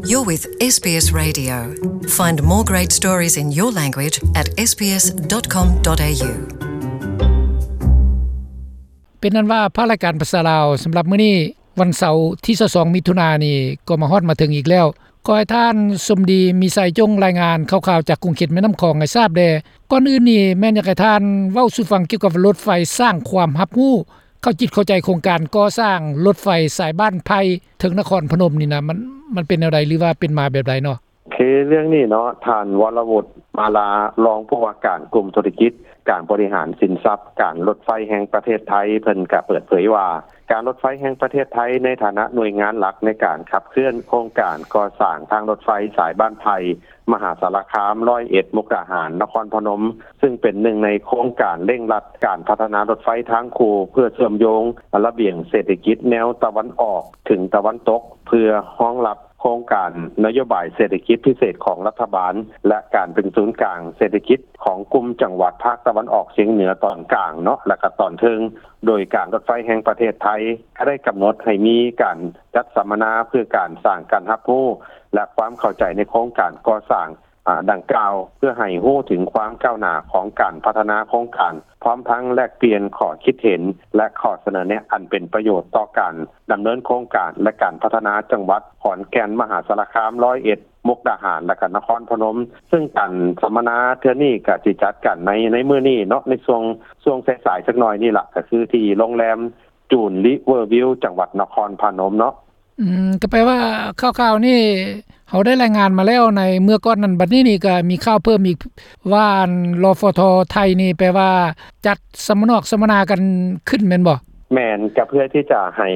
You're with SBS Radio. Find more great stories in your language at sbs.com.au. ເປັນນັ້ນວ່າ ພາກລາຍການພາສາລາວ ສຳລັບມື້ນີ້ ວັນເສົາທີຊາວສອງ ມິຖຸນານີ້ ກໍມາຮອດມາເຖິງອີກແລ້ວ. ຂໍໃຫ້ທ່ານສົມດີ ມີໄຊ ຈົ່ງລາຍງານຂ່າວໆ ຈາກຂົງເຂດແມ່ນ້ຳຂອງໃຫ້ຊາບແດ່. ກ່ອນອື່ນນີ້ ແມ່ນຢາກໃຫ້ທ່ານເວົ້າສູ່ຟັງກ່ຽວກັບລົດໄຟສ້າງຄວາມຮັບຮູ້ ເຂົ້າຈິດເຂົ້າໃຈໂຄງການກໍ່ສ້າງລົດໄຟສາຍບ້ານໄຜ່ເຖິງນະຄອນພະນົມນີ້ນະ ມັນ ມັນເປັນແນວໃດ ຫຼືວ່າເປັນມາແບບໃດເນາະ? ຄືເລື່ອງນີ້ເນາະ ທ່ານ ວໍລະວຸດ ມາລາ ຮອງຜູ້ວ່າການກຸ່ມທຸລະກິດການບໍລິຫານສິນຊັບການລົດໄຟແຫ່ງປະເທດໄທ ເພິ່ນກະເປີດເຜີຍວ່າ ການລົດໄຟແຫ່ງປະເທດໄທໃນຖານະໜ່ວຍງານຫຼັກໃນການຂັບເຄື່ອນໂຄງການກໍ່ສ້າງທາງລົດໄຟສາຍບ້ານໄຜ່ ມະຫາສາລະຄາມ ຮ້ອຍເອັດ ມຸກດາຫານ ນະຄອນພະນົມ ຊຶ່ງເປັນໜຶ່ງໃນໂຄງການເລັ່ງລັດການພັດທະນາລົດໄຟທາງຄູ່ ເພື່ອເຊື່ອມໂຍງລະບຽງເສດຖະກິດແນວຕາເວັນອອກເຖິງຕາເວັນຕົກ ເພື່ອຮອງຮັບໂຄງການນະໂຍບາຍເສດຖະກິດພິເສດຂອງລັດຖະບານ ແລະ ການເປັນສູນກາງເສດຖະກິດຂອງກຸ່ມຈັງຫວັດພາກຕາເວັນອອກສຽງເໜືອຕອນກາງເນາະ ແລະ ກະຕອນເທິງ. ໂດຍການລົດໄຟແຫ່ງປະເທດໄທ ກະໄດ້ກຳນົດໃຫ້ມີການຈັດສຳມະນາເພື່ອການສ້າງການຮັບຮູ້ ແລະ ຄວາມເຂົ້າໃຈໃນໂຄງການກໍ່ສ້າງ ອາ ດັ່ງກ່າວ ເພື່ອໃຫ້ຮູ້ເຖິງຄວາມກ້າວໜ້າຂອງການພັດທະນາໂຄງການ ພ້ອມທັງແລກປ່ຽນຂໍ້ຄິດເຫັນ ແລະ ຂໍ້ສະເໜີແນະອັນເປັນປະໂຫຍດຕໍ່ການດຳເນີນໂຄງການ ແລະ ການພັດທະນາຈັງຫວັດຂອນແກ່ນ, ມະຫາສາລະຄາມ, ຮ້ອຍເອັດ, ມຸກດາຫານ ແລະ ກະນະຄອນພະນົມ. ຊຶ່ງການສຳມະນາເທື່ອນີ້ກະຊິຈັດກັນໃນ ໃນມື້ນີ້ເນາະ ໃນຊ່ວງ ຊ່ວງສາຍໆ ຈັກໜ້ອຍນີ້ລະ ກະຄືທີ່ໂຮງແຮມຈູນ ຣີເວີວິວ ຈັງຫວັດນະຄອນພະນົມເນາະ. ອືມ ກໍແປວ່າຂ່າວໆນີ້ເຮົາໄດ້ລາຍງານມາແລ້ວໃນເມື່ອກ່ອນນັ້ນ, ບັດນີ້ນີ້ກໍມີຂ່າວເພີ່ມອີກວ່າ ອັນ ລຟທ ໄທນີ້ ແປວ່າຈັດສຳມະນອກສຳມະນາກັນຂຶ້ນແມ່ນບໍ່? ແມ່ນ, ກໍເພື່ອທີ່ຈະໃຫ້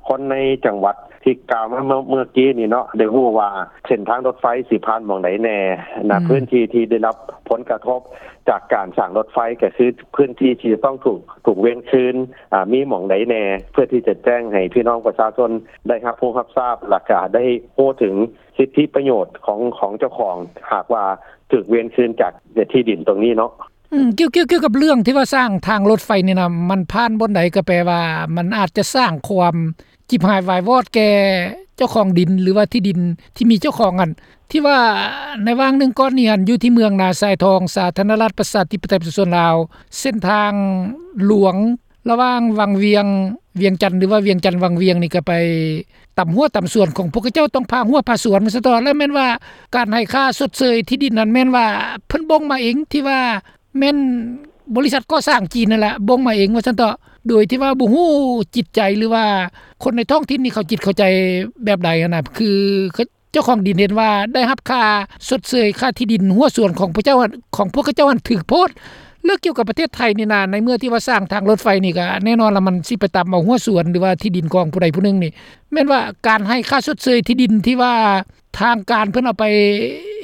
ຄົນໃນຈັງຫວັດທີ່ກ່າວມາເມື່ອ ເມື່ອກີ້ນີ້ເນາະ ໄດ້ຮູ້ວ່າເສັ້ນທາງລົດໄຟຊິຜ່ານໝ່ອງໃດແດ່ນະ, ອືມ ພື້ນທີ່ທີ່ໄດ້ຮັບຜົນກະທົບຈາກການສ້າງລົດໄຟ ກໍຄືພື້ນທີ່ທີ່ຈະຕ້ອງຖືກ ຖືກເວນຄືນ ອາ ມີໝ່ອງໃດແດ່ ເພື່ອທີ່ຈະແຈ້ງໃຫ້ພີ່ນ້ອງປະຊາຊົນໄດ້ຮັບຮູ້ຮັບຊາບ ແລ້ວກະໄດ້ຮູ້ເຖິງສິດທິປະໂຫຍດຂອງ ຂອງເຈົ້າຂອງ ຫາກວ່າຖືກເວນຄືນຈາກທີ່ດິນຕົງນີ້ເນາະ. ອືມ ກ່ຽວ ກ່ຽວ ກ່ຽວກັບເລື່ອງທີ່ວ່າສ້າງທາງລົດໄຟນີ້ນະ ມັນຜ່ານບ່ອນໃດ ກໍແປວ່າມັນອາດຈະສ້າງຄວາມ ຈິບຫາຍວາຍວອດແກ່ເຈົ້າຂອງດິນ ຫຼືວ່າທີ່ດິນທີ່ມີເຈົ້າຂອງຫັ້ນ ທີ່ວ່າໃນຫວ່າງໜຶ່ງກ່ອນນີ້ຫັ້ນ ຢູ່ທີ່ເມືອງນາຊາຍທອງ ສາທາລະນະລັດປະຊາທິປະໄຕປະຊາຊົນລາວ ເສັ້ນທາງຫຼວງລະຫວ່າງວັງວຽງ ວຽງຈັນ ຫຼືວ່າວຽງຈັນວັງວຽງນີ້ ກໍໄປຕຳຮົ້ວຕຳສວນຂອງພວກເຂົາເຈົ້າ ຕ້ອງຜ່າຮົ້ວຜ່າສວນ ວ່າຊັ້ນເຖາະ. ແລະ ແມ່ນວ່າການໃຫ້ຄ່າຊົດເຊີຍທີ່ດິນນັ້ນ ແມ່ນວ່າເພິ່ນບົ່ງມາເອງ ທີ່ວ່າ ແມ່ນບໍລິສັດກໍ່ສ້າງຈີນນັ້ນແຫຼະ ບົ່ງມາເອງວ່າຊັ້ນເຖາະ ໂດຍທີ່ວ່າບໍ່ຮູ້ຈິດໃຈ ຫຼືວ່າຄົນໃນທ້ອງຖິ່ນນີ້ເຂົາຈິດເຂົ້າໃຈແບບໃດຫັ້ນນະ ຄືເຈົ້າຂອງດິນເຫັນວ່າໄດ້ຮັບຄ່າຊົດເຊີຍຄ່າທີ່ດິນຮົ້ວສວນຂອງພວກເຈົ້າ ຂອງພວກເຂົາເຈົ້າຫັ້ນຖືກໂພດ. ແລ້ວກ່ຽວກັບປະເທດໄທນີ້ນະ ໃນເມື່ອທີ່ວ່າສ້າງທາງລົດໄຟນີ້ ກໍແນ່ນອນລະ ມັນຊິໄປຕຳເອົາຮົ້ວສວນ ຫຼືວ່າທີ່ດິນຂອງຜູ້ໃດຜູ້ໜຶ່ງນີ້ ແມ່ນວ່າການໃຫ້ຄ່າຊົດເຊີຍທີ່ດິນທີ່ວ່າ ທາງການເພິ່ນເອົາໄປ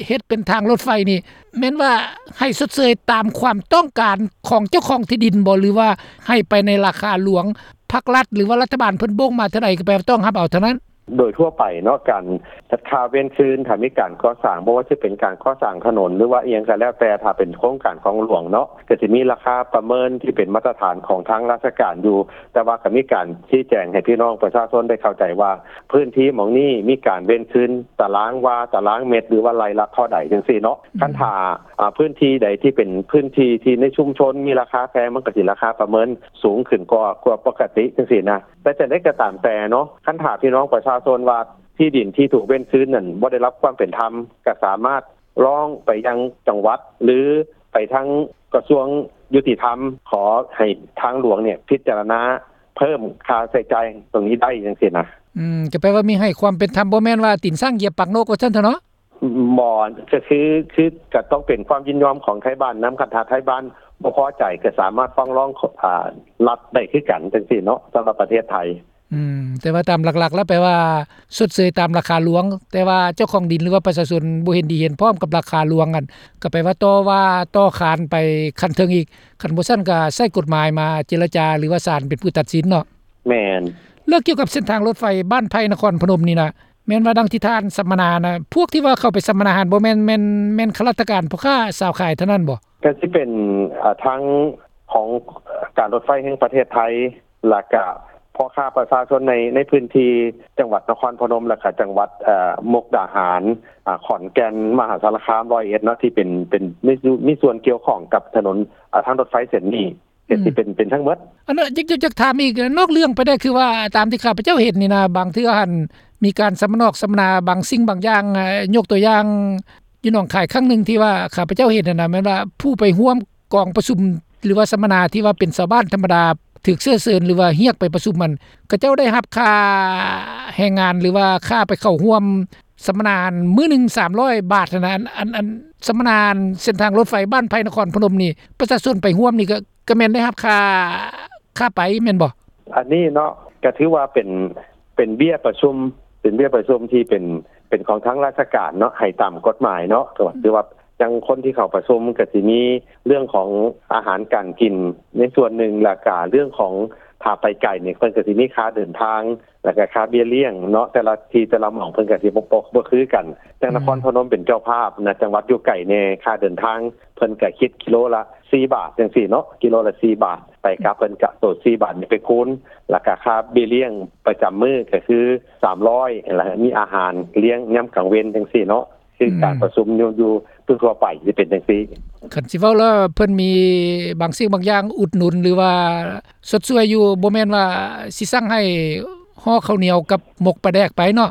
ເຮັດເປັນທາງລົດໄຟນີ້ ແມ່ນວ່າໃຫ້ຊົດເຊີຍຕາມຄວາມຕ້ອງການຂອງເຈົ້າຂອງທີ່ດິນບໍ່ ຫຼືວ່າໃຫ້ໄປໃນລາຄາຫຼວງ ພັກລັດ ຫຼືວ່າລັດຖະບານເພິ່ນບົ່ງມາເທົ່າໃດ ກໍແປວ່າຕ້ອງຮັບເອົາເທົ່ານັ້ນ? ໂດຍທົ່ວໄປເນາະ ການຈັດຄ່າເວນຄືນ ຖ້າມີການກໍ່ສ້າງ ບໍ່ວ່າຈະເປັນການກໍ່ສ້າງຖະໜົນ ຫຼືວ່າອີ່ຫຍັງກໍແລ້ວແຕ່ ຖ້າເປັນໂຄງການຂອງຫຼວງເນາະ ກໍຈະມີລາຄາປະເມີນທີ່ເປັນມາດຕະຖານຂອງທາງລາຊະການຢູ່ ແຕ່ວ່າກໍມີການຊີ້ແຈງໃຫ້ພີ່ນ້ອງປະຊາຊົນໄດ້ເຂົ້າໃຈວ່າ ພື້ນທີ່ໝ່ອງນີ້ມີການເວນຄືນຕາລາງວາ ຕາລາງເມັດ ຫຼືວ່າໄລ່ລະເທົ່າໃດຈັ່ງຊີ້ເນາະ. ອືມ ຄັນຖ້າ ອາ ພື້ນທີ່ໃດທີ່ເປັນພື້ນທີ່ທີ່ໃນຊຸມຊົນມີລາຄາແພງ ມັນກໍຊິລາຄາປະເມີນສູງຂຶ້ນກວ່າ ກວ່າປົກກະຕິຈັ່ງຊີ້ນະ. ແຕ່ຈັ່ງໃດກໍຕາມແຕ່ເນາະ ຄັນຖ້າພີ່ນ້ອງປະຊາຊົນວ່າທີ່ດິນທີ່ຖືກເວນຄືນນັ້ນບໍ່ໄດ້ຮັບຄວາມເປັນທຳ ກໍສາມາດ ຮ້ອງໄປຍັງຈັງຫວັດ ຫຼື ໄປທາງກະຊວງຍຸຕິທຳ ຂໍໃຫ້ທາງຫຼວງນີ້ພິຈາລະນາເພີ່ມຄ່າໃຊ້ຈ່າຍຕົງນີ້ໄດ້ຈັ່ງຊີ້ນະ. ອືມ ກໍແປວ່າມີໃຫ້ຄວາມເປັນທຳ ບໍ່ແມ່ນວ່າຕີນຊ້າງຢຽບປາກນົກ ວ່າຊັ້ນເຖາະເນາະ? ບໍ່ ກໍຄື ຄືກໍຕ້ອງເປັນຄວາມຍິນຍອມຂອງໄທບ້ານນຳ ຄັນຖ້າໄທບ້ານບໍ່ພໍໃຈ ກໍສາມາດຟ້ອງຮ້ອງ ອາ ລັດໄດ້ຄືກັນຈັ່ງຊີ້ເນາະ ສຳລັບປະເທດໄທ. ອືມ ແຕ່ວ່າຕາມຫຼັກໆແລ້ວແປວ່າຊົດເຊີຍຕາມລາຄາຫຼວງ ແຕ່ວ່າເຈົ້າຂອງດິນ ຫຼືວ່າປະຊາຊົນບໍ່ເຫັນດີເຫັນພ້ອມກັບລາຄາຫຼວງຫັ້ນ ກໍແປວ່າຕໍ່ວ່າຕໍ່ຂານໄປຂັ້ນເທິງອີກ ຄັນບໍ່ຊັ້ນກໍໃຊ້ກົດໝາຍມາເຈລະຈາ ຫຼືວ່າສານເປັນຜູ້ຕັດສິນເນາະ. ແມ່ນ. ແລ້ວກ່ຽວກັບເສັ້ນທາງລົດໄຟບ້ານໄຜ່ນະຄອນພະນົມນີ້ນະ ແມ່ນວ່າດັ່ງທີ່ທ່ານສຳມະນານະ ພວກທີ່ວ່າເຂົ້າໄປສຳມະນາຫັ້ນ ບໍ່ແມ່ນ ແມ່ນ ແມ່ນຂ້າລາຊະການ ພໍ່ຄ້າຊາວຂາຍເທົ່ານັ້ນບໍ່? ກໍຊິເປັນ ອາ ທາງຂອງການລົດໄຟແຫ່ງປະເທດໄທ ແລ້ວກະພ ພໍ່ຄ້າປະຊາຊົນໃນ ໃນພື້ນທີ່ຈັງຫວັດນະຄອນພະນົມ ແລະກະຈັງຫວັດ ເອີ່ ມຸກດາຫານ ອາ ຂອນແກ່ນ ມະຫາສາລະຄາມ ຮ້ອຍເອັດເນາະ ທີ່ເປັນ ເປັນມີ ມີສ່ວນກ່ຽວຂ້ອງກັບຖະໜົນ ອາ ທາງລົດໄຟເສັ້ນນີ້ ເຮັດ ອືມ ທີ່ເປັນ ເປັນທັງໝົດ. ອັນນັ້ນ ຢາກ ຢາກ ຢາກຖາມອີກ ນອກເລື່ອງໄປແດ່ ຄືວ່າຕາມທີ່ຂ້າພະເຈົ້າເຫັນນີ້ນະ ບາງເທື່ອຫັ້ນມີການສຳມະນອກສຳມະນາບາງສິ່ງບາງຢ່າງ ເອີ່ ຍົກຕົວຢ່າງ ຢູ່ໜອງຄາຍຄັ້ງໜຶ່ງທີ່ວ່າຂ້າພະເຈົ້າເຫັນຫັ້ນນະ ແມ່ນວ່າຜູ້ໄປຮ່ວມກອງປະຊຸມ ຫຼືວ່າສຳມະນາທີ່ວ່າເປັນຊາວບ້ານທຳມະດາ ຖືກເຊື້ອເຊີນ ຫຼືວ່າຮຽກໄປປະຊຸມຫັ້ນ ເຂົາເຈົ້າໄດ້ຮັບຄ່າແຮງງານ ຫຼືວ່າຄ່າໄປເຂົ້າຮ່ວມສຳມະນາຫັ້ນ ມື້ໜຶ່ງສາມຮ້ອຍບາດຫັ້ນນະ. ອັນ ອັນ ອັນສຳມະນາເສັ້ນທາງລົດໄຟບ້ານໄຜ່ນະຄອນພະນົມນີ້ ປະຊາຊົນໄປຮ່ວມນີ້ ກໍ ກໍແມ່ນໄດ້ຮັບຄ່າ ຄ່າໄປແມ່ນບໍ່? ອັນນີ້ເນາະ ກໍຖືວ່າເປັນ ເປັນເບ້ຍປະຊຸມ ເປັນເບ້ຍປະຊຸມທີ່ເປັນ ເປັນຂອງທາງລາຊະການເນາະ ໃຫ້ຕາມກົດໝາຍເນາະ. ອືມ ຖືວ່າຈັ່ງຄົນທີ່ເຂົ້າປະຊຸມກໍຊິມີເລື່ອງຂອງອາຫານການກິນໃນສ່ວນໜຶ່ງ ແລ້ວກະເລື່ອງຂອງ ຖ້າໄປໄກນີ້ ເພິ່ນກໍຊິມີຄ່າເດີນທາງ ແລ້ວກະຄ່າເບ້ຍລ້ຽງເນາະ ແຕ່ລະທີ່ແຕ່ລະໝ່ອງເພິ່ນກໍຊິບໍ່ ບໍ່ ບໍ່ຄືກັນ. ຢ່າງ ອືມ ນະຄອນພະນົມເປັນເຈົ້າພາບນະ ຈັງຫວັດຢູ່ໄກແດ່ ຄ່າເດີນທາງເພິ່ນກໍຄິດກິໂລລະສີ່ບາດຈັ່ງຊີ້ເນາະ ກິໂລລະສີ່ບາດ ໄປກັບເພິ່ນກະໂຕສີ່ບາດນີ້ໄປຄູນ ແລ້ວກະຄ່າເບ້ຍລ້ຽງປະຈຳມື້ກໍຄືສາມຮ້ອຍ ແລ້ວມີອາຫານລ້ຽງຍາມກາງເວັນຈັ່ງຊີ້ເນາະ. ຄື ອືມ ການປະຊຸມຢູ່ ຢູ່ທົ່ວໆໄປຊິເປັນຈັ່ງຊີ້. ຄັນຊິເວົ້າແລ້ວ ເພິ່ນມີບາງສິ່ງບາງຢ່າງອຸດໜູນ ຫຼືວ່າຊົດຊ່ວຍຢູ່ ບໍ່ແມ່ນວ່າຊິສັ່ງໃຫ້ຫໍ່ເຂົ້າໜຽວກັບໝົກປາແດກໄປເນາະ?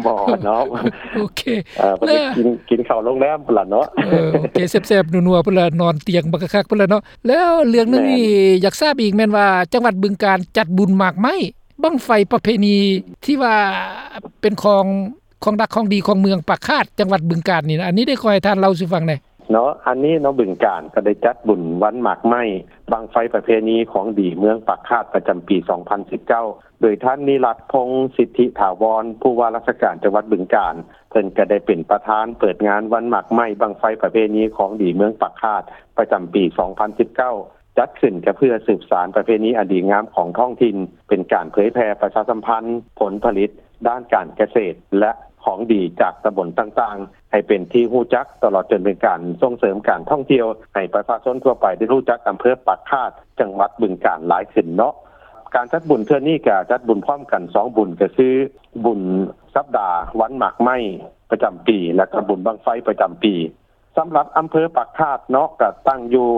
ບໍ່ເນາະ ໂອເຄ ເອີ ເພິ່ນ ແລ້ວ ໄປກິນ ກິນເຂົ້າໂຮງແຮມພຸ້ນລະເນາະ. ເອີ ໂອເຄ ແຊບໆນົວໆພຸ້ນລະ ນອນຕຽງບັກຄັກໆພຸ້ນລະເນາະ. ແລ້ວເລື່ອງໜຶ່ງນີ້ ແມ່ນ ຢາກຊາບອີກແມ່ນວ່າ ຈັງຫວັດບຶງການຈັດບຸນໝາກໄມ້ ບັ້ງໄຟປະເພນີທີ່ວ່າເປັນຂອງ ຂອງດັກຂອງດີຂອງເມືອງປາກຄາດ ຈັງຫວັດບຶງການນີ້ນະ ອັນນີ້ໄດ້ຂໍໃຫ້ທ່ານເລົ່າສູ່ຟັງແດ່ເນາະ. ອັນນີ້ເນາະ ບຶງການກໍໄດ້ຈັດບຸນວັນໝາກໄມ້ ບັ້ງໄຟປະເພນີຂອງດີເມືອງປາກຄາດ ປະຈຳປີສອງພັນສິບເກົ້າ ໂດຍທ່ານ ນິລັດ ພົງສິດທິຖາວອນ ຜູ້ວ່າລາຊະການຈັງຫວັດບຶງການ ເພິ່ນກໍໄດ້ເປັນປະທານເປີດງານວັນໝາກໄມ້ ບັ້ງໄຟປະເພນີຂອງດີເມືອງປາກຄາດ ປະຈຳປີສອງພັນສິບເກົ້າ ຈັດຂຶ້ນກໍເພື່ອສືບສານປະເພນີອັນດີງາມຂອງທ້ອງຖິ່ນ ເປັນການເຜີຍແຜ່ປະຊາສຳພັນຜົນຜະລິດດ້ານການກະເສດ ແລະ ຂອງດີຈາກຕຳບົນຕ່າງໆ ໃຫ້ເປັນທີ່ຮູ້ຈັກ ຕະຫຼອດຈົນເປັນການສົ່ງເສີມການທ່ອງທ່ຽວ ໃຫ້ປະຊາຊົນທົ່ວໄປໄດ້ຮູ້ຈັກອຳເພີປາກຄາດ ຈັງຫວັດບຶງການຫຼາຍຂຶ້ນເນາະ. ການຈັດບຸນເທື່ອນີ້ກໍຈັດບຸນພ້ອມກັນສອງບຸນ ກໍຄືບຸນສັບດາວັນໝາກໄມ້ປະຈຳປີ ແລະ ກໍບຸນບັ້ງໄຟປະຈຳປີ. ສຳລັບອຳເພີປາກຄາດເນາະ ກະຕັ້ງຢູ່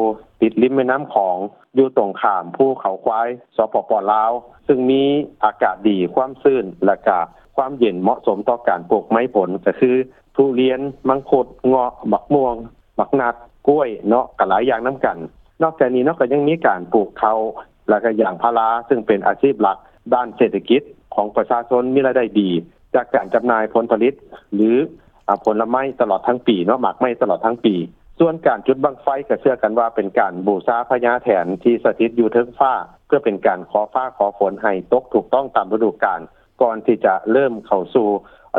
ຕິດລິມແມ່ນ້ຳຂອງ ຢູ່ຕົງຂ້າມພູເຂົາຄວາຍ ສປປ ລາວ ຊຶ່ງມີອາກາດດີ ຄວາມຊື້ນ ແລະກະຄວາມເຢັນເໝາະສົມຕໍ່ການປູກໄມ້ຜົນ ກະຄືທຸລຽນ, ມັງຄຸດ, ເງາະ, ບັກມ່ວງ, ບັກນັດ, ກ້ວຍເນາະ ກະຫຼາຍຢ່າງນຳກັນ. ນອກຈາກນີ້ເນາະ ກະຍັງມີການປູກເຂົ້າ ແລະກະຢາງພາລາ ຊຶ່ງເປັນອາຊີບຫຼັກດ້ານເສດຖະກິດຂອງປະຊາຊົນ ມີລາຍໄດ້ດີຈາກການຈຳໜ່າຍຜົນຜະລິດ ຫຼື ອາ ຜົນລະໄມ້ຕະຫຼອດທັງປີເນາະ ໝາກໄມ້ຕະຫຼອດທັງປີ. ສ່ວນການຈຸດບັ້ງໄຟກໍເຊື່ອກັນວ່າເປັນການບູຊາພະຍາແຖນທີ່ສະຖິດຢູ່ເທິງຟ້າ ເພື່ອເປັນການຂໍຟ້າຂໍຝົນໃຫ້ຕົກຖືກຕ້ອງຕາມລະດູການ ກ່ອນທີ່ຈະເລີ່ມເຂົ້າສູ່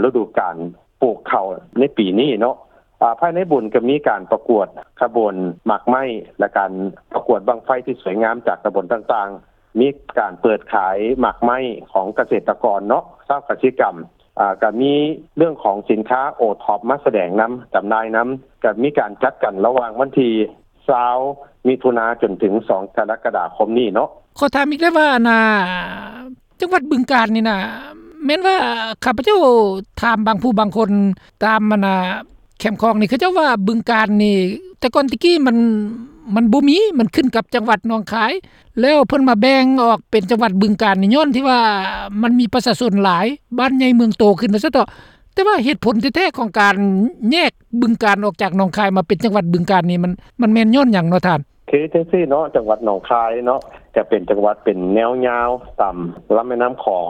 ລະດູການປູກເຂົ້າໃນປີນີ້ເນາະ. ອາ ພາຍໃນບຸນກໍມີການປະກວດຂະບວນໝາກໄມ້ ແລະ ການປະກວດບັ້ງໄຟທີ່ສວຍງາມຈາກຕຳບົນຕ່າງໆ. ມີການເປີດຂາຍໝາກໄມ້ຂອງກະເສດຕະກອນເນາະ ຊາວກະສິກຳ ອາ ກະມີເລື່ອງຂອງສິນຄ້າໂອທັອບມາສະແດງນຳ ຈຳໜ່າຍນຳ ກະມີການຈັດກັນລະຫວ່າງວັນທີຊາວ ມິຖຸນາ ຈົນເຖິງສອງ ກໍລະກະດາຄົມນີ້ເນາະ. ຂໍຖາມອີກໄດ້ວ່າ ອັນນ່າ ຈັງຫວັດບຶງການນີ້ນະ ແມ່ນວ່າຂ້າພະເຈົ້າຖາມບາງຜູ້ບາງຄົນຕາມ ອັນນ່າ ແຄມຂອງນີ້ ເຂົາເຈົ້າວ່າບຶງການນີ້ ແຕ່ກ່ອນແຕ່ກີ້ມັນ ມັນບໍ່ມີ ມັນຂຶ້ນກັບຈັງຫວັດໜອງຄາຍ ແລ້ວເພິ່ນມາແບ່ງອອກເປັນຈັງຫວັດບຶງການນີ້ ຍ້ອນທີ່ວ່າມັນມີປະຊາຊົນຫຼາຍ ບ້ານໃຫຍ່ເມືອງໂຕຂຶ້ນວ່າຊັ້ນເຖາະ. ແຕ່ວ່າເຫດຜົນແທ້ໆຂອງການແຍກບຶງການອອກຈາກໜອງຄາຍມາເປັນຈັງຫວັດບຶງການນີ້ ມັນ ມັນແມ່ນຍ້ອນຫຍັງເນາະທ່ານ? ຄືຈັ່ງຊີ້ເນາະ ຈັງຫວັດໜອງຄາຍເນາະ ຈະເປັນຈັງຫວັດເປັນແນວຍາວຕາມລຳແມ່ນ້ຳຂອງ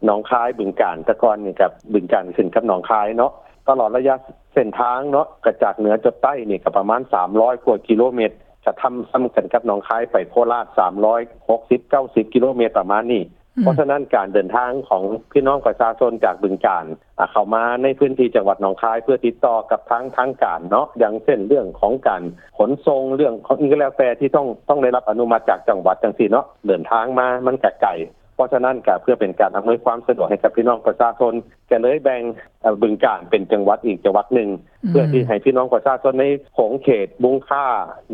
ໜອງຄາຍ ບຶງການ ແຕ່ກ່ອນນີ້ກັບບຶງການຂຶ້ນກັບໜອງຄາຍເນາະ ຕະຫຼອດໄລຍະເສັ້ນທາງເນາະ ກະຈາກເໜືອຈົດໃຕ້ນີ້ກະປະມານສາມຮ້ອຍກວ່າກິໂລເມັດ ກະທຳ ສ່ຳກັນກັບໜອງຄາຍໄປໂຄລາດ ສາມຮ້ອຍຫົກສິບ ເກົ້າສິບກິໂລເມັດປະມານນີ້. ອືມ ເພາະສະນັ້ນການເດີນທາງຂອງພີ່ນ້ອງປະຊາຊົນຈາກບຶງການ ອາ ເຂົ້າມາໃນພື້ນທີ່ຈັງຫວັດໜອງຄາຍ ເພື່ອຕິດຕໍ່ກັບທາງທາງການເນາະ ຢ່າງເຊັ່ນເລື່ອງຂອງການຂົນສົ່ງ ເລື່ອງຂອງອີ່ຫຍັງກໍແລ້ວແຕ່ທີ່ຕ້ອງ ຕ້ອງໄດ້ຮັບອະນຸມັດຈາກຈັງຫວັດຈັ່ງຊີ້ເນາະ ເດີນທາງມາມັນກະໄກ. ເພາະສະນັ້ນກະເພື່ອເປັນການອຳນວຍຄວາມສະດວກໃຫ້ກັບພີ່ນ້ອງປະຊາຊົນ ກະເລີຍແບ່ງ ເອີ ບຶງການເປັນຈັງຫວັດອີກຈັງຫວັດໜຶ່ງ ອືມ ເພື່ອທີ່ໃຫ້ພີ່ນ້ອງປະຊາຊົນໃນຂົງເຂດບຸງຄາ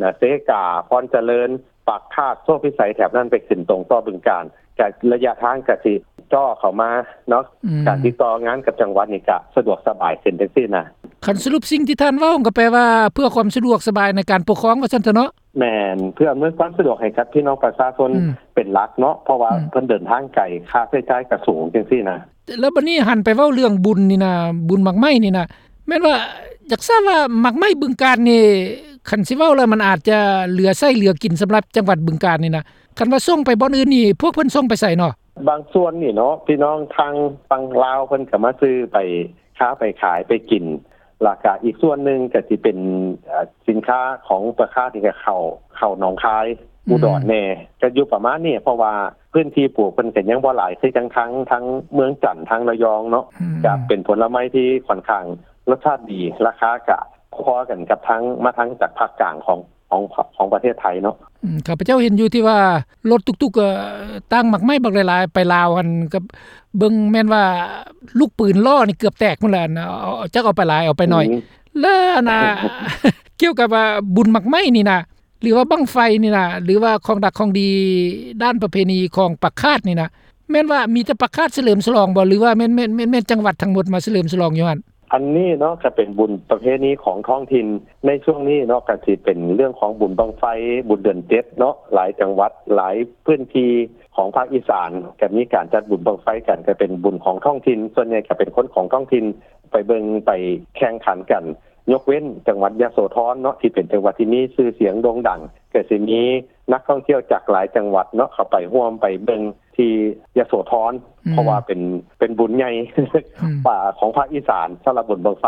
ນະ ເຊກາ ພອນຈະເລີນ ປາກຄາດ ໂຊພິໄສ ແຖບນັ້ນໄປຂຶ້ນຕົງຕໍ່ບຶງການ ກະໄລຍະທາງກະຊິເຈາະເຂົ້າມາເນາະ ອືມ ການຕິດຕໍ່ງານກັບຈັງຫວັດນີ້ກະສະດວກສະບາຍຂຶ້ນຈັ່ງຊີ້ນະ. ຄັນສະຫຼຸບສິ່ງທີ່ທ່ານເວົ້າກະແປວ່າ ເພື່ອຄວາມສະດວກສະບາຍໃນການປົກຄອງວ່າຊັ້ນເຖາະເນາະ. ແມ່ນ ເພື່ອອຳນວຍຄວາມສະດວກໃຫ້ກັບພີ່ນ້ອງປະຊາຊົນ ອືມ ເປັນຫຼັກເນາະ ເພາະວ່າ ອືມ ເພິ່ນເດີນທາງໄກ ຄ່າໃຊ້ຈ່າຍກະສູງຈັ່ງຊີ້ນະ. ແລ້ວບັດນີ້ຫັນໄປເວົ້າເລື່ອງບຸນນີ້ນະ ບຸນໝາກໄມ້ນີ້ນະ ແມ່ນວ່າ ຢາກຊາບວ່າໝາກໄມ້ບຶງການນີ້ ຄັນຊິເວົ້າແລ້ວມັນອາດຈະເຫຼືອໃຊ້ເຫຼືອກິນສຳລັບຈັງຫວັດບຶງການນີ້ນະ ຄັນວ່າສົ່ງໄປບ່ອນອື່ນນີ້ ພວກເພິ່ນສົ່ງໄປໃສເນາະ? ບາງສ່ວນນີ້ເນາະ ພີ່ນ້ອງທາງຝັ່ງລາວເພິ່ນກະມາຊື້ໄປຄ້າໄປຂາຍໄປກິນ ລະກະອີກສ່ວນໜຶ່ງກະຊິເປັນ ເອີ ສິນຄ້າຂອງປາກຄາດນີ້ກະເຂົ້າ ເຂົ້າໜອງຄາຍ ອືມ ອຸດອນແດ່ ກະຢູ່ປະມານນີ້ ເພາະວ່າພື້ນທີ່ປູກເພິ່ນກະຍັງບໍ່ຫຼາຍ ຄືຈັ່ງທາງ ທາງເມືອງຈັນ ທາງລະຍອງເນາະ ອືມ ກະເປັນຜົນລະໄມ້ທີ່ຂ້ອນຂ້າງລົດຊາດດີ ລາຄາກະພໍກັນກັບທາງ ມາທາງຈາກພາກກາງຂອງ ຂອງ ຂອງປະເທດໄທເນາະ. ອືມ ຂ້າພະເຈົ້າເຫັນຢູ່ທີ່ວ່າລົດຕຸກໆ ເອີ ຕັ້ງໝາກໄມ້ບັກຫຼາຍໆ ໄປລາວຫັ້ນ ກະເບິ່ງແມ່ນວ່າລູກປືນລໍ້ນີ້ເກືອບແຕກພຸ້ນແຫຼະ ອັນ ເອົາ ຈັກເອົາໄປຫຼາຍເອົາໄປໜ້ອຍ ອືມ ແລະ ອັນນ່າ ກ່ຽວກັບວ່າບຸນໝາກໄມ້ນີ້ນະ ຫຼືວ່າບັ້ງໄຟນີ້ນະ ຫຼືວ່າຂອງດັກຂອງດີດ້ານປະເພນີຂອງປາກຄາດນີ້ນະ ແມ່ນວ່າມີແຕ່ປາກຄາດສະເຫຼີມສະຫຼອງບໍ່ ຫຼືວ່າແມ່ນ ແມ່ນ ແມ່ນ ແມ່ນຈັງຫວັດທັງໝົດມາສະເຫຼີມສະຫຼອງຢູ່ຫັ້ນ? ອັນນີ້ເນາະ ກະເປັນບຸນປະເພນີຂອງທ້ອງຖິ່ນ ໃນຊ່ວງນີ້ເນາະ ກະຊິເປັນເລື່ອງຂອງບຸນບັ້ງໄຟ ບຸນເດືອນເຈັດເນາະ ຫຼາຍຈັງຫວັດ ຫຼາຍພື້ນທີ່ຂອງພາກອີສານ ກະມີການຈັດບຸນບັ້ງໄຟກັນ ກະເປັນບຸນຂອງທ້ອງຖິ່ນ ສ່ວນໃຫຍ່ກະເປັນຄົນຂອງທ້ອງຖິ່ນ ໄປເບິ່ງໄປແຂ່ງຂັນກັນ ຍົກເວັ້ນຈັງຫວັດຍະໂສທອນເນາະ ທີ່ເປັນຈັງຫວັດທີ່ມີຊື່ສຽງໂດ່ງດັງ ກະຊິມີນັກທ່ອງທ່ຽວຈາກຫຼາຍຈັງຫວັດເນາະ ເຂົ້າໄປຮ່ວມໄປເບິ່ງທີ່ຍະໂສທອນ ອືມ ເພາະວ່າເປັນ ເປັນບຸນໃຫຍ່ ອືມ ຂອງພາກອີສານ ສຳລັບບຸນບັ້ງໄຟ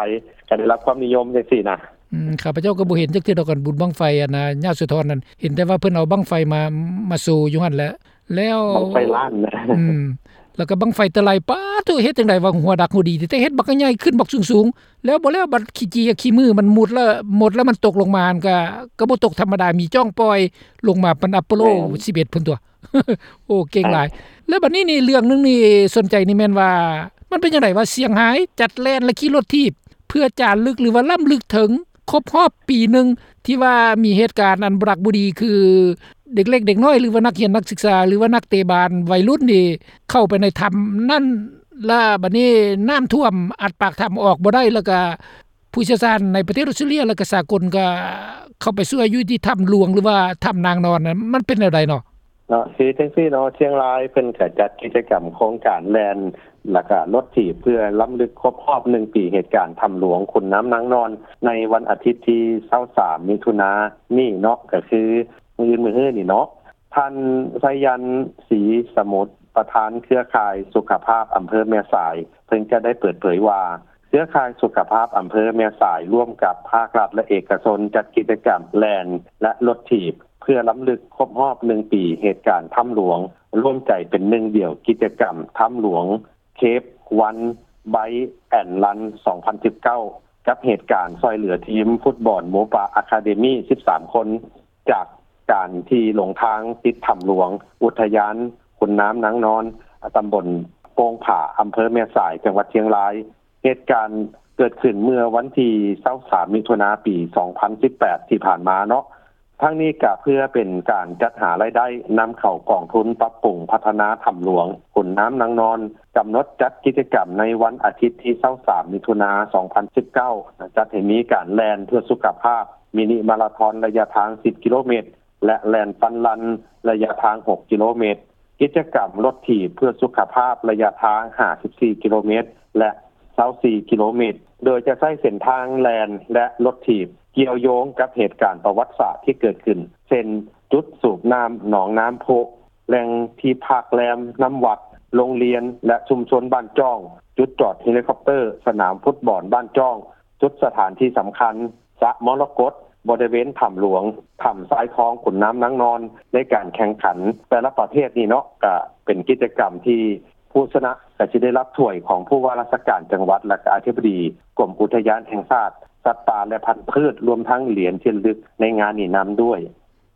ກະໄດ້ຮັບຄວາມນິຍົມຈັ່ງຊີ້ນະ. ອືມ ຂ້າພະເຈົ້າກະບໍ່ເຫັນຈັກເທື່ອດອກ ອັນບຸນບັ້ງໄຟ ອັນນ່າ ຍະໂສທອນນັ້ນ ເຫັນແຕ່ວ່າເພິ່ນເອົາບັ້ງໄຟມາ ມາໂຊຢູ່ຫັ້ນແຫຼະ ແລ້ວ ບັ້ງໄຟລ້ານນະ ອືມ ແລ້ວກະບັ້ງໄຟຕະໄລ ປາໂທ້ ເຮັດຈັ່ງໃດວ່າຫົວດັກຫົວດີ ແຕ່ເຮັດບັກໃຫຍ່ຂຶ້ນບັກສູງໆ ແລ້ວບໍ່ແລ້ວບັດຂີ້ຈີ້ຂີ້ມືມັນໝົດລະ ໝົດລະມັນຕົກລົງມາຫັ້ນກະ ກະບໍ່ຕົກທຳມະດາ ມີຈ້ອງປ່ອຍລົງມາປານອາໂປໂລ ແມ່ນ ສິບເອັດພຸ້ນຕົວະ. ໂອ້ ເກັ່ງຫຼາຍ ແລ້ວບັດນີ້ນີ້ເລື່ອງໜຶ່ງນີ້ສົນໃຈນີ້ແມ່ນວ່າ ມັນເປັນຈັ່ງໃດວ່າຊຽງຮາຍຈັດແລ່ນ ແລະ ຂີ່ລົດຖີບ ເພື່ອຈາລຶກ ຫຼືວ່າລ້ຳລຶກເຖິງຄົບຮອບປີໜຶ່ງ ທີ່ວ່າມີເຫດການອັນບໍ່ຮັກບໍ່ດີ ຄືເດັກເລັກເດັກນ້ອຍ ຫຼືວ່ານັກຮຽນນັກສຶກສາ ຫຼືວ່ານັກເຕະບານໄວລຸ້ນນີ້ ເຂົ້າໄປໃນຖ້ຳນັ້ນ ລະບັດນີ້ນ້ຳຖ້ວມອັດປາກຖ້ຳອອກບໍ່ໄດ້ ລະກະ ຜູ້ຊ່ຽວຊານໃນປະເທດອອສເຕຣເລັຍ ແລະ ກະສາກົນກະເຂົ້າໄປຊ່ວຍຢູ່ທີ່ຖ້ຳຫຼວງ ຫຼືວ່າຖ້ຳນາງນອນນັ້ນ ມັນເປັນແນວໃດເນາະ? ເນາະ ຄືຈັ່ງຊີ້ເນາະ ຊຽງລາຍເພິ່ນກະຈັດກິດຈະກຳໂຄງການແລ່ນ ລະກະລົດຖີບ ເພື່ອລຳລຶກຄົບຮອບໜຶ່ງປີເຫດການຖ້ຳຫຼວງຂຸນນ້ຳນາງນອນ ໃນວັນອາທິດທີຊາວສາມ ມິຖຸນານີ້ເນາະ ກະຄືມື້ອື່ນມື້ຮືນີ້ເນາະ. ທ່ານ ໄຊຍັນ ສີສະໝຸດ ປະທານເຄືອຂ່າຍສຸຂະພາບອຳເພີແມ່ສາຍ ເພິ່ນກະໄດ້ເປີດເຜີຍວ່າ ເຄືອຂ່າຍສຸຂະພາບອຳເພີແມ່ສາຍ ຮ່ວມກັບພາກລັດ ແລະ ເອກະຊົນ ຈັດກິດຈະກຳແລ່ນ ແລະ ລົດຖີບ ເພື່ອລຳລຶກຄົບຮອບໜຶ່ງປີເຫດການຖ້ຳຫຼວງ ລວມໃຈເປັນໜຶ່ງດຽວ ກິດຈະກຳຖ້ຳຫຼວງ Cave One Bite and Run ສອງພັນສິບເກົ້າ ກັບເຫດການຊ່ອຍເຫຼືອທີມຟຸດບອນໝູປ່າ Academy ສິບສາມຄົນ ຈາກການທີ່ຫຼົງທາງຕິດຖ້ຳຫຼວງ ອຸທະຍານຂຸນນ້ຳນາງນອນ ຕຳບົນໂປ່ງຜາ ອຳເພີແມ່ສາຍ ຈັງຫວັດຊຽງລາຍ. ເຫດການເກີດຂຶ້ນເມື່ອວັນທີຊາວສາມ ມິຖຸນາ ປີສອງພັນສິບແປດ ທີ່ຜ່ານມາເນາະ. ທັງນີ້ກະເພື່ອເປັນການຈັດຫາລາຍໄດ້ນຳເຂົ້າກອງທຶນປັບປຸງພັດທະນາຖ້ຳຫຼວງຂຸນນ້ຳນາງນອນ, ກຳນົດຈັດກິດຈະກຳໃນວັນອາທິດທີຊາວສາມ ມິຖຸນາ ສອງພັນສິບເກົ້າ ຈັດໃຫ້ມີການແລ່ນເພື່ອສຸຂະພາບ ມິນິມາລາທອນໄລຍະທາງສິບກິໂລເມດ ແລະ ແລ່ນຟັນຣັນໄລຍະທາງຫົກກິໂລເມດ, ກິດຈະກຳລົດຖີບເພື່ອສຸຂະພາບໄລຍະທາງຫ້າສິບສີ່ກິໂລເມດ ແລະ ຊາວສີ່ກິໂລເມດ ໂດຍຈະໃຊ້ເສັ້ນທາງແລ່ນ ແລະ ລົດຖີບ ກ່ຽວໂຍງກັບເຫດການປະຫວັດສາດທີ່ເກີດຂຶ້ນ ເຊັ່ນ ຈຸດສູບນ້ຳໜອງນ້ຳພຸ, ແຫຼ່ງທີ່ພັກແລມ, ນ້ຳວັດ, ໂຮງຮຽນ ແລະ ຊຸມຊົນບ້ານຈ້ອງ, ຈຸດຈອດເຮລິຄອບເຕີ, ສະໜາມຟຸດບອນບ້ານຈ້ອງ, ຈຸດສະຖານທີ່ສຳຄັນ, ສະມໍລະກົດ, ບໍລິເວນຖ້ຳຫຼວງ, ຖ້ຳຊາຍທອງຂຸນນ້ຳນາງນອນ ໃນການແຂ່ງຂັນແຕ່ລະປະເພດນີ້ເນາະ, ກະເປັນກິດຈະກຳທີ່ຜູ້ຊະນະກະຊິໄດ້ຮັບຖ້ວຍຂອງຜູ້ວ່າລາຊະການຈັງຫວັດ ແລະ ກະອະທິບໍດີກົມອຸທະຍານແຫ່ງຊາດ ສັດປ່າ ແລະ ພັນພືດ ລວມທັງຫຼຽນທີ່ລະລຶກໃນງານນີ້ນຳດ້ວຍ.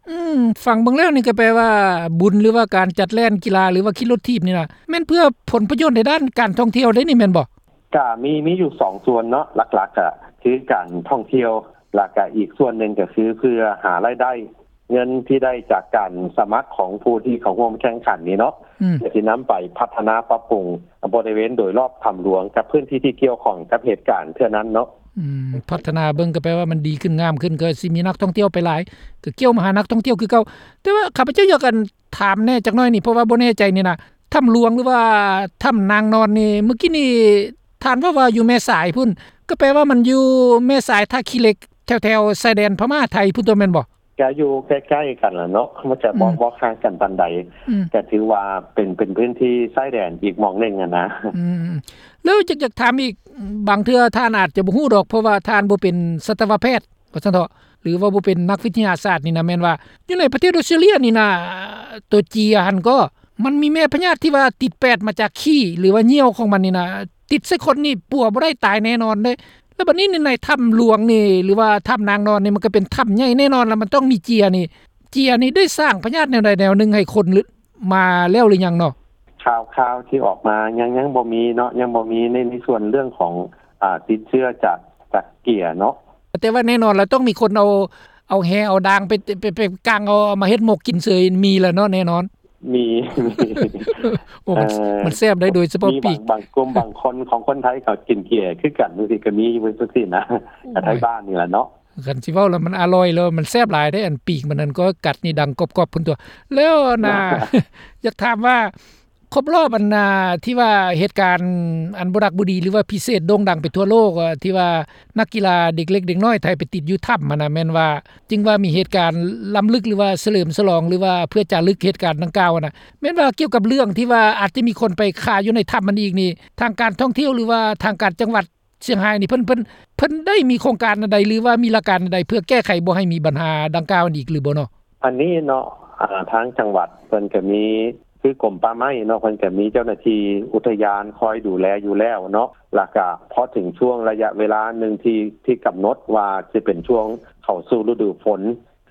ອືມ ຟັງເບິ່ງແລ້ວນີ້ກະແປວ່າບຸນ ຫຼືວ່າການຈັດແລ່ນກິລາ ຫຼືວ່າຂີ່ລົດຖີບນີ້ນະ ແມ່ນເພື່ອຜົນປະໂຫຍດໃນດ້ານການທ່ອງທ່ຽວເດ້ນີ້ແມ່ນບໍ່? ກະມີ ມີຢູ່ສອງສ່ວນເນາະ ຫຼັກໆ ກະຄືການທ່ອງທ່ຽວ ລະກະອີກສ່ວນໜຶ່ງກະຄືເພື່ອຫາລາຍໄດ້ ເງິນທີ່ໄດ້ຈາກການສະໝັກຂອງຜູ້ທີ່ເຂົ້າຮ່ວມແຂ່ງຂັນນີ້ເນາະ ອືມ ກໍຊິນຳໄປພັດທະນາປັບປຸງບໍລິເວນໂດຍລອບຖ້ຳຫຼວງ ກັບພື້ນທີ່ທີ່ກ່ຽວຂ້ອງກັບເຫດການເທື່ອນັ້ນເນາະ ອືມ ພັດທະນາເບິ່ງກໍແປວ່າມັນດີຂຶ້ນງາມຂຶ້ນ ກໍຊິມີນັກທ່ອງທ່ຽວໄປຫຼາຍ ກໍກ່ຽວມາຫານັກທ່ອງທ່ຽວຄືເກົ່າ. ແຕ່ວ່າຂ້າພະເຈົ້າຢາກ ອັນ ຖາມແດ່ຈັກໜ້ອຍນີ້ ເພາະວ່າບໍ່ແນ່ໃຈນີ້ນະ ຖ້ຳຫຼວງ ຫຼືວ່າຖ້ຳນາງນອນນີ້ ມື້ກີ້ນີ້ທ່ານເວົ້າວ່າຢູ່ແມ່ສາຍພຸ້ນ ກໍແປວ່າມັນຢູ່ແມ່ສາຍ ທ່າຂີ້ເຫຼັກ ແຖວໆຊາຍແດນພະມ້າໄທພຸ້ນຕົວະ ແມ່ນບໍ່? ກະຢູ່ໃກ້ໆກັນລະເນາະ ມັນກະບໍ່ ອືມ ບໍ່ຫ່າງກັນປານໃດ ອືມ ກະຖືວ່າເປັນ ເປັນພື້ນທີ່ຊາຍແດນອີກໝ່ອງໜຶ່ງຫັ້ນນະ ອືມ ແລ້ວຢາກ ຢາກຖາມອີກ ບາງເທື່ອທ່ານອາດຈະບໍ່ຮູ້ດອກ ເພາະວ່າທ່ານບໍ່ເປັນສັດຕະວະແພດ ວ່າຊັ້ນເຖາະ ຫຼືວ່າບໍ່ເປັນນັກວິທະຍາສາດນີ້ນະ ແມ່ນວ່າຢູ່ໃນປະເທດອອສເຕຣເລຍນີ້ນະ ຕົວເຈຍຫັ້ນກໍ ມັນມີແມ່ພະຍາດທີ່ວ່າຕິດແປດມາຈາກຂີ້ ຫຼືວ່າຍ່ຽວຂອງມັນນີ້ນະ ຕິດໃສ່ຄົນນີ້ປົວບໍ່ໄດ້ ຕາຍແນ່ນອນເດ້. ແລ້ວບັດນີ້ໃນຖ້ຳຫຼວງນີ້ ຫຼືວ່າຖ້ຳນາງນອນນີ້ ມັນກໍເປັນຖ້ຳໃຫຍ່ແນ່ນອນ ແລ້ວມັນຕ້ອງມີເຈຍນີ້ ເຈຍນີ້ໄດ້ສ້າງພະຍາດແນວໃດແນວໜຶ່ງໃຫ້ຄົນ ມາແລ້ວຫຼືຍັງເນາະ? ຂ່າວໆທີ່ອອກມາຍັງ ຍັງບໍ່ມີເນາະ ຍັງບໍ່ມີໃນ ໃນສ່ວນເລື່ອງຂອງ ອາ ຕິດເຊື້ອຈາກ ຈາກເຈຍເນາະ ແຕ່ວ່າແນ່ນອນລະ ຕ້ອງມີຄົນເອົາ ເອົາແຮ່ເອົາດາງໄປ ໄປ ໄປກາງເອົາ ເອົາມາເຮັດໝົກກິນເສີຍ ມີລະເນາະ ແນ່ນອນ ມີ ມີ ໂອ້ ມັນ ເອີ ມັນແຊບໄດ໋ ໂດຍສະເພາະປີກ ບາງ ບາງກຸ່ມບາງຄົນຂອງຄົນໄທເຂົາກິນເຈຄືກັນ ຈັ່ງຊີ້ກໍມີຢູ່ ຈັ່ງຊີ້ນະ ໂອ້ຍ ໄທບ້ານນີ້ລະເນາະ. ຄັນຊິເວົ້າແລ້ວມັນອະລ່ອຍ ແລ້ວມັນແຊບຫຼາຍເດ້ ອັນປີກມັນນັ້ນກໍກັດນີ້ດັງກອບໆພຸ້ນຕົວະ. ແລ້ວນະ ຢາກຖາມວ່າ ຄົບລອບອັນນາ ທີ່ວ່າເຫດການອັນບໍ່ດັກບໍ່ດີ ຫຼືວ່າພິເສດໂດ່ງດັງໄປທົ່ວໂລກ ທີ່ວ່ານັກກິລາເດັກເລັກເດັກນ້ອຍໄທໄປຕິດຢູ່ຖ້ຳຫັ້ນນະ ແມ່ນວ່າຈຶ່ງວ່າມີເຫດການລຳລຶກ ຫຼືວ່າສະເຫຼີມສະຫຼອງ ຫຼືວ່າເພື່ອຈາລຶກເຫດການດັ່ງກ່າວຫັ້ນນະ ແມ່ນວ່າກ່ຽວກັບເລື່ອງທີ່ວ່າອາດຈະມີຄົນໄປຄາຢູ່ໃນຖ້ຳຫັ້ນອີກນີ້ ທາງການທ່ອງທ່ຽວ ຫຼືວ່າທາງການຈັງຫວັດ ຊຽງຮາຍນີ້ ເພິ່ນ ເພິ່ນ ເພິ່ນໄດ້ມີໂຄງການອັນໃດ ຫຼືວ່າມີຫຼັກການອັນໃດ ເພື່ອແກ້ໄຂບໍ່ໃຫ້ມີບັນຫາດັ່ງກ່າວນີ້ອີກຫຼືບໍ່ເນາະ? ອັນນີ້ເນາະ ອາ ທາງຈັງຫວັດເພິ່ນກະມີ ຄືກົມປ່າໄມ້ເນາະ ເພິ່ນກະມີເຈົ້າໜ້າທີ່ອຸທະຍານຄອຍດູແລຢູ່ແລ້ວເນາະ ລະກະພໍເຖິງຊ່ວງໄລຍະເວລາໜຶ່ງທີ່ ທີ່ກຳນົດວ່າຊິເປັນຊ່ວງເຂົ້າສູ່ລະດູຝົນ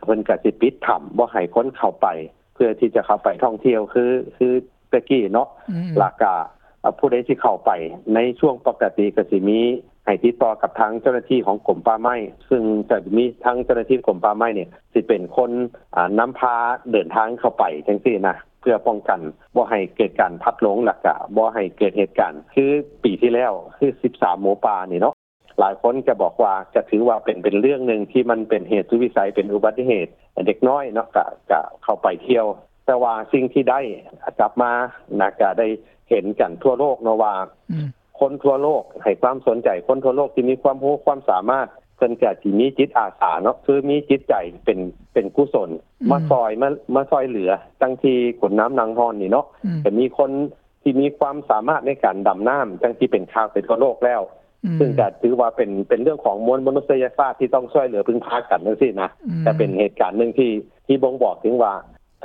ເພິ່ນກະຊິປິດຖ້ຳບໍ່ໃຫ້ຄົນເຂົ້າໄປ ເພື່ອທີ່ຈະເຂົ້າໄປທ່ອງທ່ຽວ ຄື ຄື ແຕ່ກີ້ເນາະ ອືມ ລະກະ ອາ ຜູ້ໃດທີ່ເຂົ້າໄປໃນຊ່ວງປົກກະຕິກະຊິມີໃຫ້ຕິດຕໍ່ກັບທາງເຈົ້າໜ້າທີ່ຂອງກົມປ່າໄມ້ ຊຶ່ງກະມີທາງເຈົ້າໜ້າທີ່ກົມປ່າໄມ້ນີ້ຊິເປັນຄົນ ອາ ນຳພາເດີນທາງເຂົ້າໄປຈັ່ງຊີ້ນະ ເພື່ອປ້ອງກັນບໍ່ໃຫ້ເກີດການພັດຫຼົງ ລະກະບໍ່ໃຫ້ເກີດເຫດການ ຄືປີທີ່ແລ້ວ ຄືສິບສາມໝູປ່ານີ້ເນາະ. ຫຼາຍຄົນກະບອກວ່າ ກະຖືວ່າເປັນ ເປັນເລື່ອງໜຶ່ງທີ່ມັນເປັນເຫດສຸດວິໄສ ເປັນອຸບັດຕິເຫດ ເດັກນ້ອຍເນາະ ກະ ກະເຂົ້າໄປທ່ຽວ ແຕ່ວ່າສິ່ງທີ່ໄດ້ກັບມານະ ກະໄດ້ເຫັນກັນທົ່ວໂລກເນາະວ່າ ອືມ ຄົນທົ່ວໂລກໃຫ້ຄວາມສົນໃຈ ຄົນທົ່ວໂລກທີ່ມີຄວາມຮູ້ຄວາມສາມາດ ເພິ່ນກະຊິມີຈິດອາສາເນາະ ຄືມີຈິດໃຈເປັນ ເປັນກຸສົນ ອືມ ມາຊ່ອຍ ມາ ມາຊ່ອຍເຫຼືອ ຈັ່ງທີ່ຂົນນ້ຳນາງຮອນນີ້ເນາະ ອືມ ກະມີຄົນ ທີ່ມີຄວາມສາມາດໃນການດຳນ້ຳ ຈັ່ງທີ່ເປັນຂ່າວໄປທົ່ວໂລກແລ້ວ ອືມ ຊຶ່ງກະຖືວ່າເປັນ ເປັນເລື່ອງຂອງມວນມະນຸດສະຍະຊາດທີ່ຕ້ອງຊ່ວຍເຫຼືອເພິ່ງພາກັນຈັ່ງຊີ້ນະ ອືມ ກະເປັນເຫດການໜຶ່ງທີ່ ທີ່ບົ່ງບອກເຖິງວ່າ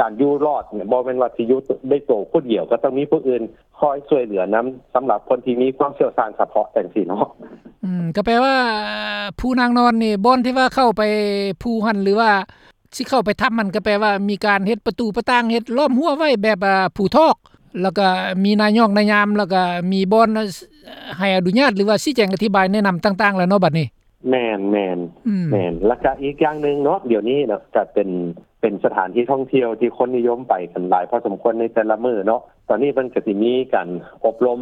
ການຢູ່ລອດນີ້ ບໍ່ແມ່ນວ່າຊິຢູ່ດ້ວຍໂຕຜູ້ດຽວ ກະຕ້ອງມີຜູ້ອື່ນຄອຍຊ່ວຍເຫຼືອນຳ ສຳລັບຄົນທີ່ມີຄວາມຊ່ຽວຊານສະເພາະຈັ່ງຊີ້ເນາະ ອືມ ກະແປວ່າພູນາງນອນນີ້ ບ່ອນທີ່ວ່າເຂົ້າໄປພູຫັ້ນ ຫຼືວ່າ ຊິເຂົ້າໄປຖ້ຳຫັ້ນ ກະແປວ່າມີການເຮັດປະຕູປະຕ່າງ ເຮັດລ້ອມຮົ້ວໄວ້ແບບ ອາ ພູທອກ ລະກະມີນາຍອກນາຍາມ ລະກະມີບ່ອນໃຫ້ອະນຸຍາດ ຫຼືວ່າຊີ້ແຈງອະທິບາຍແນະນຳຕ່າງໆແລ້ວເນາະ ບັດນີ້. ແມ່ນ ແມ່ນ ອືມ ແມ່ນ ລະກະອີກຢ່າງໜຶ່ງເນາະ ດຽວນີ້ເນາະ ກະເປັນ ເປັນສະຖານທີ່ທ່ອງທ່ຽວທີ່ຄົນນິຍົມໄປກັນຫຼາຍພໍສົມຄວນໃນແຕ່ລະມື້ເນາະ ຕອນນີ້ເພິ່ນກະຊິມີການອົບຮົມ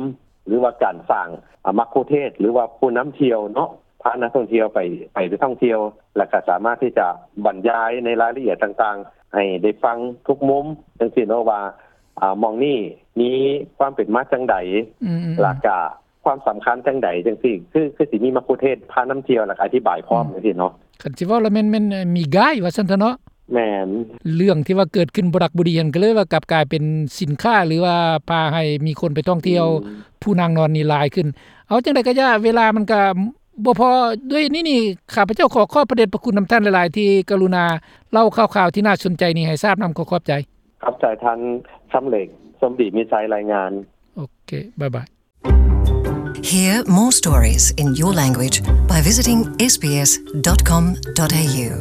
ຫຼືວ່າການສ້າງ ອາ ມັກຄຸເທດ ຫຼືວ່າຜູ້ນຳທ່ຽວເນາະ ພານັກທ່ອງທ່ຽວໄປ ໄປທ່ອງທ່ຽວ ລະກະສາມາດທີ່ຈະບັນຍາຍໃນລາຍລະອຽດຕ່າງໆ ໃຫ້ໄດ້ຟັງທຸກມຸມ ຈັ່ງຊີ້ເນາະວ່າ ອາ ໝ່ອງນີ້ມີຄວາມເປັນມາຈັ່ງໃດ ອືມໆໆ ລະກະຄວາມສຳຄັນຈັ່ງໃດ ຈັ່ງຊີ້ ຄື ຄືຊິມີມັກຄຸເທດພານຳທ່ຽວ ລະກະອະທິບາຍພ້ອມ ອືມ ຈັ່ງຊີ້ເນາະ. ຄັນຊິເວົ້າລະແມ່ນ ແມ່ນມີກາຍວ່າຊັ້ນເຖາະເນາະ. ແມ່ນ ເລື່ອງທີ່ວ່າເກີດຂຶ້ນບໍ່ດັກບໍ່ດີຫັ້ນ ກະເລີຍວ່າກັບກາຍເປັນສິນຄ້າ ຫຼືວ່າພາໃຫ້ມີຄົນໄປທ່ອງທ່ຽວ ອືມ ພູນາງນອນນີ້ຫຼາຍຂຶ້ນ. ເອົາຈັ່ງໃດກະຢ່າ ເວລາມັນກະບໍ່ພໍ ດ້ວຍນີ້ນີ້ ຂ້າພະເຈົ້າຂໍຂອບພະເດດພະຄຸນນຳທ່ານຫຼາຍໆ ທີ່ກະລຸນາເລົ່າຂ່າວໆທີ່ໜ້າສົນໃຈນີ້ໃຫ້ຊາບນຳ. ຂໍຂອບໃຈ. ຂອບໃຈທ່ານ ຄຳເຫຼັກ ສົມດີມີໄຊ ລາຍງານ. ໂອເຄ ບາຍບາຍ. Hear more stories in your language by visiting S B S dot com dot A U.